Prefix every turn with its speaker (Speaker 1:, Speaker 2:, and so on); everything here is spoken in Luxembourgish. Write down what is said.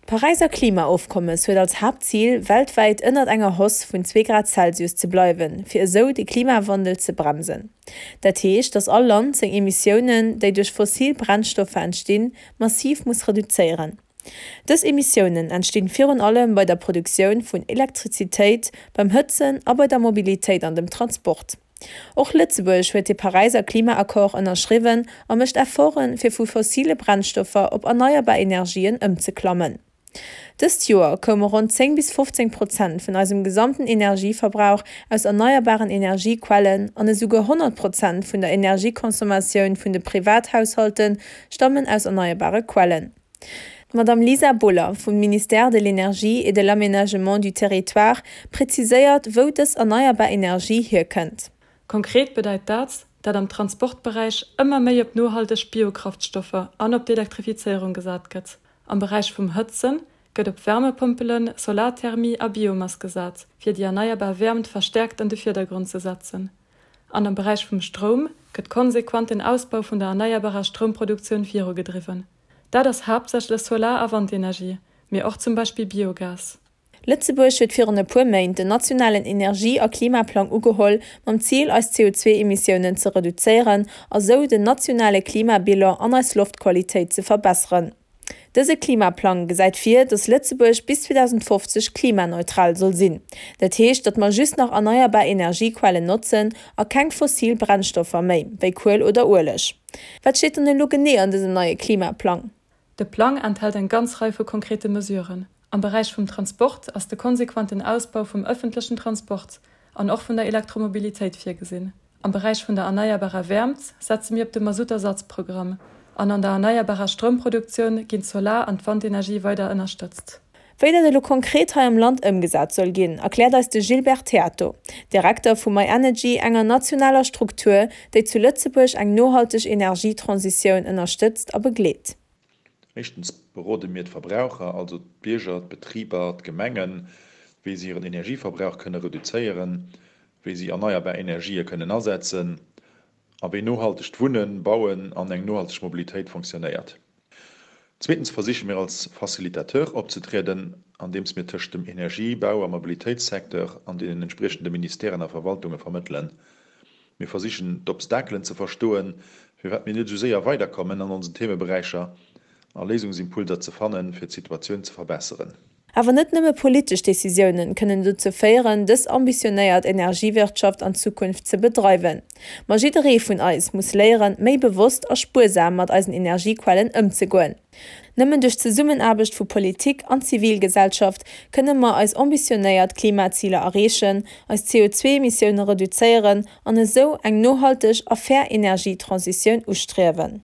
Speaker 1: D'Paräiser Klimaofkommes huet als Haaptzil, weltwäit ënnert enger Hausse vun zwee Grad Celsius ze bleiwen, fir esou de Klimawandel ze bremsen. Dat heescht, datt all Land seng Emissiounen, déi duerch fossil Brennstoffer entstinn, massiv muss reduzéieren. Dës Emissiounen entstinn virun allem bei der Produktioun vun Elektrizitéit, beim Hëtzen a bei der Mobilitéit an dem Transport. Och Lëtzebuerg huet de Paräiser Klimaaccord ënnerschriwwen a mécht Efforten, fir vu fossile Brennstoffer op erneierbar Energien ëmzeklammen. Dëst Joer koume ronn 10 bis 15 Prozent vun eisem gesamten Energieverbrauch aus erneierbaren Energiequellen an esouguer 100 Prozent vun der Energieconsommatioun vun de Privathaushalte stammen aus erneierbare Quellen. D'Madame Lisa Boller vum Ministère de l'Énergie et de l'Aménagement du Territoire präziséiert, wou dës erneierbar Energie hierkënnt.
Speaker 2: Konkret bedeit dat, dat am Transportberäich ëmmer méi op nohalteg Biokraftstoffer an op d'Elektrifizéierung gesat gëtt. Am Beräich vum Hëtzen gëtt op Wärmepompelen, Solarthermie a Biomass gesat, fir déi erneierbar Wäermt verstäerkt an de Virdergrond ze setzen. An am Beräich vum Stroum gëtt konsequent den Ausbau vun der erneierbarer Stroumproduktioun virugedriwwen. Dat ass haaptsächlech Solar a Wandenergie, mee och zum Beispill Biogas.
Speaker 1: Lëtzebuerg huet virun e puer Méint den nationalen Energie a Klimaplang ugeholl, mam Zil eis CO2-Emissiounen ze reduzéieren a sou den nationale Klimabilan an eis Loftqualitéit ze verbesseren. Dëse Klimaplang gesäit vir, datt Lëtzebuerg bis 2050 klimaneutral soll sinn. Dat heescht, datt mer just nach erneierbar Energiequellen notzen a keng fossil Brennstoffer méi, wéi Kuel oder Ueleg. Wat steet dann elo genee an dësem neie Klimaplang?
Speaker 2: De Plang enthält eng ganz Rei vu konkrete Mesuren. Am Beräich vum Transport ass de konsequenten Ausbau vum ëffentlechen Transport an och vun der Elektromobilitéit virgesinn. Am Beräich vun der erneierbarer Wäermt setze mir op de Masuttersatzprogramm an an der erneierbarer Stroumproduktioun ginn d'Solar an d'Wandenergie weider ënnerstëtzt.
Speaker 1: Wéi dat elo konkret hei am Land ëmgesat soll ginn, erkläert eis de Gilbert Theato, Direkter vu myenergy, enger nationaler Struktur, déi zu Lëtzebuerg eng nohalteg Energietransitioun ënnerstëtzt a begleet.
Speaker 3: Éischtens berode mir d'Verbraucher, also d'Bierger, d'Betriber, d'Gemengen, wéi si hiren Energieverbrauch kënne reduzéieren, wéi si erneierbar Energië kënnen asetzen a wéi nohaltegt Wunnen, Bauen an eng nohalteg Mobilitéit fonctionnéiert. Zweetens versiche mir als Facilitateur opzetrieden, andeems mir tëscht dem Energie-, Bau a Mobilitéitssecteur an deenen entspriechende Ministèren a Verwaltunge vermëttelen. Mir versichen d'Obstakelen ze verstoen, firwat mir net esou séier weiderkommen an onsen Themeberäicher, a Léisungsimpulser ze fannen, fir d'Situatioun ze verbesseren.
Speaker 1: Awer net nëmme politesch Decisiounen kënnen dozou féieren, dës ambitionéiert Energiewirtschaft an Zukunft ze bedreiwen. Ma jidderee vun eis muss léieren, méi bewosst a spuersam mat eisen Energiequellen ëmzegoen. Nëmmen duerch d'Zesummenaarbecht vu Politik an Zivilgesellschaft kënne mer eis ambitionéiert Klimaziler erreechen, eis CO2-Emissioune reduzéieren an esou eng nohalteg a fair Energietransitioun ustriewen.